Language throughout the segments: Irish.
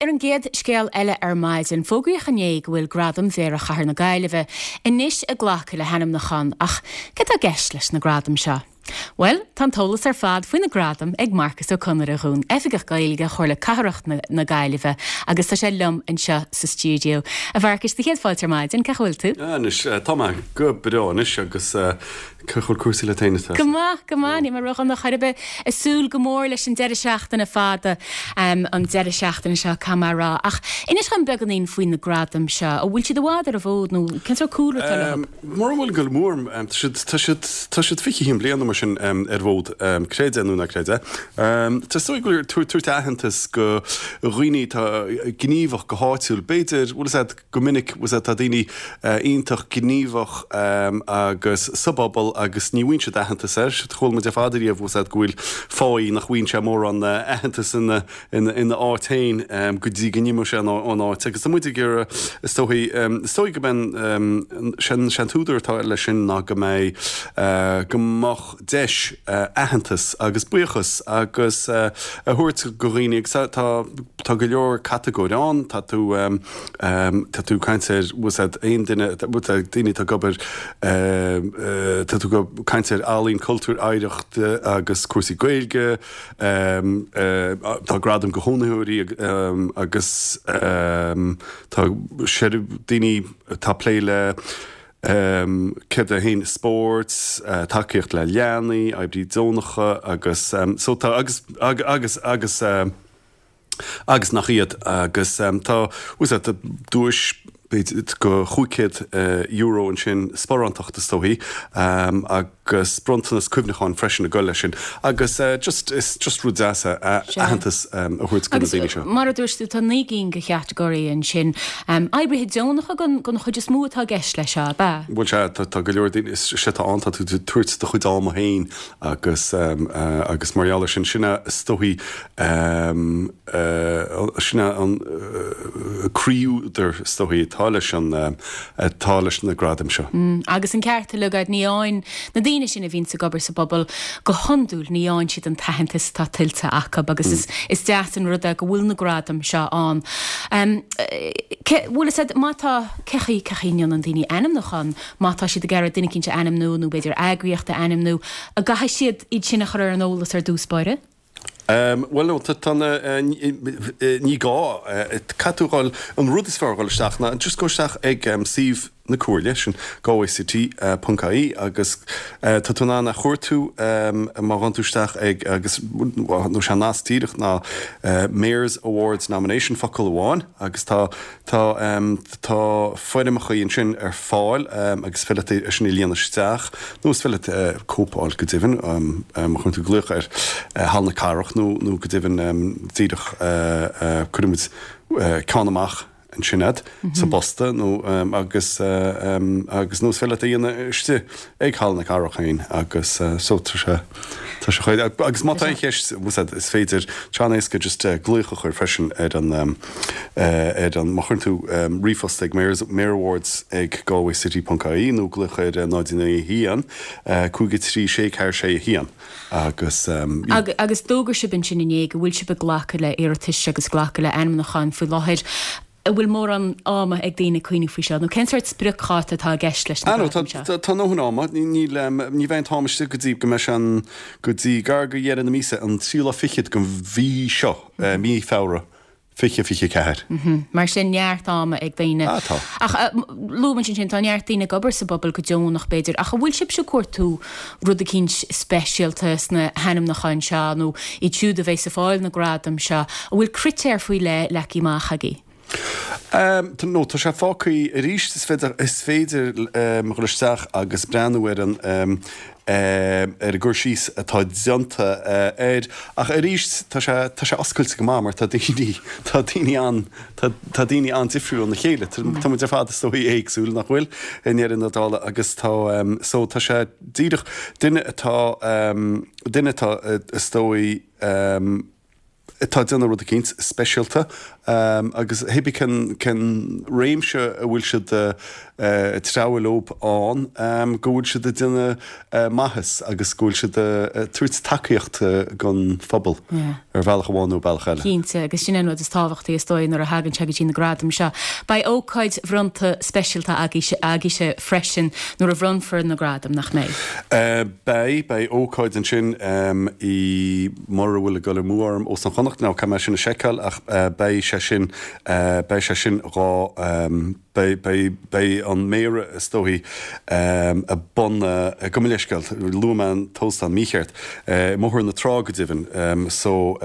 Ar an gcéad scéal eile ar maidin, fógraíodh inné go bhfuil Gradaim Mhéara Chathair na Gaillimhe anois ag glacadh le hainmniúcháin ach céard atá i gceist leis na gradaim seo? Bhuel, tá an t-eolas ar fad faoi na gradaim ag Marcus Ó Conaire dhúinn, Oifigeach Gaeilge Chomhairle Cathrach na Gaillimhe agus tá sé liom anseo sa stiúideo. A Mharcais, do chéad fáilte ar maidin, cén chaoi a bhfuil tú? Anois, tá mé go breá anois agus cén chaoi a bhfuil cúrsaí leat féin atá? Go maith, go maith, níl mé ródhona chor ar bith. Ag súil go mór leis an deireadh seachtaine fada, an deireadh seachtaine seo, caithfidh mé a rá. Ach inis dhom beagáinín faoi na gradaim seo. An bhfuil siad i bhfad ar an bhfód nó cén sórt cúlra atá leo? Mura bhfuil go mór, tá siad, tá siad, tá siad 21 bliain nó mar sin ar an bhfód, creid é nó ná creid é. Tá is dóigh go bhfuil tabhairt aitheantas go dhaoine atá gníomhach go háitiúil. B'fhéidir, bhfuil fhios a'd, go minic, bhfuil fhios a'd, tá daoine iontach gníomhach agus sa bpobal agus ní bhfaigheann siad aitheantas air. Chuala muid ar fad ariamh, bhfuil fhios a'd, go bhfuil fáidh nach bhfaigheann sé mórán aitheantas ina, ina áit féin go dtí go n-imeoidh sé ón áit agus tá muid ag iarraidh, is dóigh, is dóigh go mbeidh an, sé an t-údar atá leis sin ná go mbeidh, go mbeadh deis aitheantas agus buíochas agus a thabhairt go dhaoine agus tá, tá go leor catagóir ann, tá tú, tá tú ag caint ar, bhfuil fhios a'd, aon duine, daoine atá ag obair, tá tú ag caint ar ealaín, cultúr, oidhreacht agus cúrsaí Gaeilge, Tá gradaim go chónaitheoirí agus tá daoine atá ag plé le céard é féin, spórt, tacaíocht le leanaí, oibrithe deonacha agus so tá agus agus agus agus nach iad agus tá bhfuil fhios a'd duais b'fhéidir go €500 ansin, sparántacht is dóichí, agus bronntanas cuimhneacháin freisin ag dul leis sin. Agus just, is just rud deas é aitheantas a thabhairt do na daoine seo. Agus mar a dúirt tú, tá 9 gcinn de chatagóirí ansin. Oibrithe deonacha den chuid is mó atá i gceist leis seo, ab ea? Bhuel sea, tá go leor daoine, is é atá ann, tá tú ag tabhairt do chuid ama féin agus agus mar gheall air sin, sin é is dóichí Sin é an croí-údar, is dóichí, atá leis an, atá leis na gradaim seo. Agus an ceart uilig agat, ní fhaigheann na daoine sin a bhíonns ag obair sa bpobal, go hiondúil, ní fhaigheann siad an t-aitheantas atá tuillte acu agus is, is deas an rud é go bhfuil na gradaim seo ann. Cé, bhfuil fhios agat, má tá, cé chaoi, cé chaoi a ndéanann daoine ainmniúchán, má tá siad ag iarraidh duine eicínt a ainmniú nó b'fhéidir eagraíocht a ainmniú, an gcaithfidh siad iad sin a chur ar an eolas ar dtús báire? Bhuel, no, tá na, ní gá, caithfidh tú dhul, an rud is fearr dhul isteach ná just go isteach ag suíomh na Comhairle, sin galwaycity ponc ie agus tá tú in ann a chuartú má ghabhann tú isteach ag agus nó sé an nasc díreach ná Mayor's Awards Nomination focal amháin agus tá Tá tá foirmeacha ansin ar fáil agus is féidir leat é sin a líonadh isteach nó is féidir leat cóip a fháil go deimhin má chuireann tú glaoch ar Halla na Cathrach nó nó go deimhin díreach cuirfidh muid ceann amach ansin a'd sa bposta nó agus agus nó is féidir leat é a dhéanamh istigh ag Halla na Cathrach féin agus so tá sé tá sé chomh agus má tá aon cheist is féidir tá sé an-éasca just glaoch a chur freisin ar an ar an, má chuireann tú ríomhphost ag mayorawards ag galwaycity ponc ie nó glaoch ar 0 9 1 5 3 6 4 6 1 agus. Agus d'fhógair sibh ansin inné go bhfuil sibh ag glacadh le iarratais agus glacadh le ainmniúcháin faoi láthair. An bhfuil mórán ama ag daoine cuimhneamh faoi seo nó cén sórt spriocdháta atá i gceist leis na gradaim seo? Tá ndóthain ama. Níl, ní bheidh an t-am istigh go dtí go mbeidh sé an, go dtí gar go dheireadh na míosa, an tríú lá fichead den mhí seo, mí Feabhra. 2024. Mar sin, neart ama ag daoine. Ah, tá. Ach luaigh muid ansin, tá neart daoine ag obair sa bpobal go deonach, b'fhéidir, ach an bhfuil sibhse ag cuartú rud eicínt speisialta sna hainmniúcháin seo, nó iad siúd a bheas ag fáil na gradam seo, an bhfuil critéir faoi leith leagtha amach agaibh? No, tá sé fágtha arís, is féidir, is féidir dhul isteach agus breathnú ar an, ar an gcur síos atá déanta air. Ach arís, tá sé, tá sé oscailte go maith mar tá daoine, tá daoine an, tá, tá daoine an-difriúil óna chéile. Tá, tá muid ar fad is dóigh éagsúil, nach bhfuil, i ndeireadh na dála agus tá, so tá sé díreach, duine atá, duine atá is dóigh. Atá ag déanamh rud eicínt speisialta agus hébí cén cén réimse a bhfuil siad ag treabhadh leob ann, go bhfuil siad ag déanamh maitheas agus go bhfuil siad ag tabhairt tacaíocht don phobal ar bhealach amháin nó bealach eile. Cinnte, agus sin é an rud is tábhachtaí is dóigh nuair a thagann sé go dtí na gradaim seo. Beidh ócáid bhronnta speisialta agaibhse freisin nuair a bhronnfar na gradaim, nach mbeidh? Beidh, beidh ócáid ansin i. mura bhfuil ag dul amú orm, Óstán Chonnacht, now caithfidh mé sin a sheiceáil ach beidh sé sin, beidh sé sin dhá, beidh, beidh, beidh an Méara is dóichí i bun, gabh mo leithscéal, luaigh mé an t-óstán mícheart, i mBóthar na Trá go deimhin, so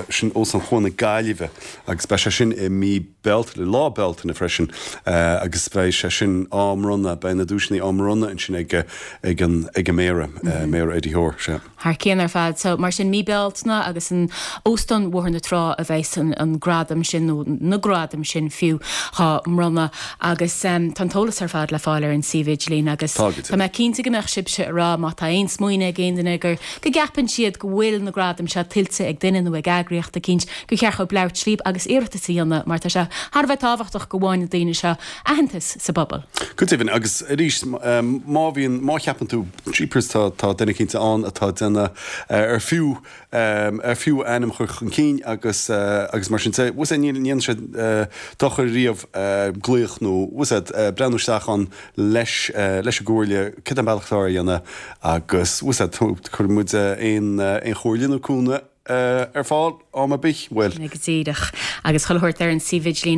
sin Óstán Chuan na Gaillimhe agus beidh sé sin i mí Bealtaine, lá Bealtaine freisin agus beidh sé sin á mbronnadh, beidh na duaiseanna á mbronnadh ansin ag, ag an, ag an Méara, Méara Eddie Hoare, sea. Thar cionn ar fad. So, mar sin, mí Bealtaine agus in Óstán Bhóthar na Trá a bheas an gradam sin, nó na gradaim sin fiú, dhá mbronnadh. Agus tá an t-eolas ar fad le fáil ar an suíomh idirlín agus tá mé cinnte go mbeadh sibhse ag rá má tá aon smaoineamh ag aon duine gur, go gceapann siad go bhfuil na gradaim seo tuillte ag duine nó ag eagraíocht eicínt, gur cheart dhóibh labhairt líb agus iarratas a dhéanamh mar tá sé thar a bheith tábhachtach go bhfaigheann na daoine seo aitheantas sa bpobal. Go deimhin, agus arís, má bhíonn, má cheapann tú, jeepers, tá, tá duine eicínt ann atá ag déanamh ar fiú, ar fiú a ainm a chur chun cinn agus, agus mar sin de, bhfuil 's a'd, ní dhéanann sé dochar riamh glaoch nó, bhfuil 's a'd, breathnú isteach ann leis, leis an gcomhairle, cad é an bealach atá á dhéanamh agus, bhfuil 's a'd, cuirfidh muid aon, aon chomhairle nó cúnamh ar fáil am ar bith, bhuel. Go díreach. Agus chuile shórt ar an suíomh idirlín.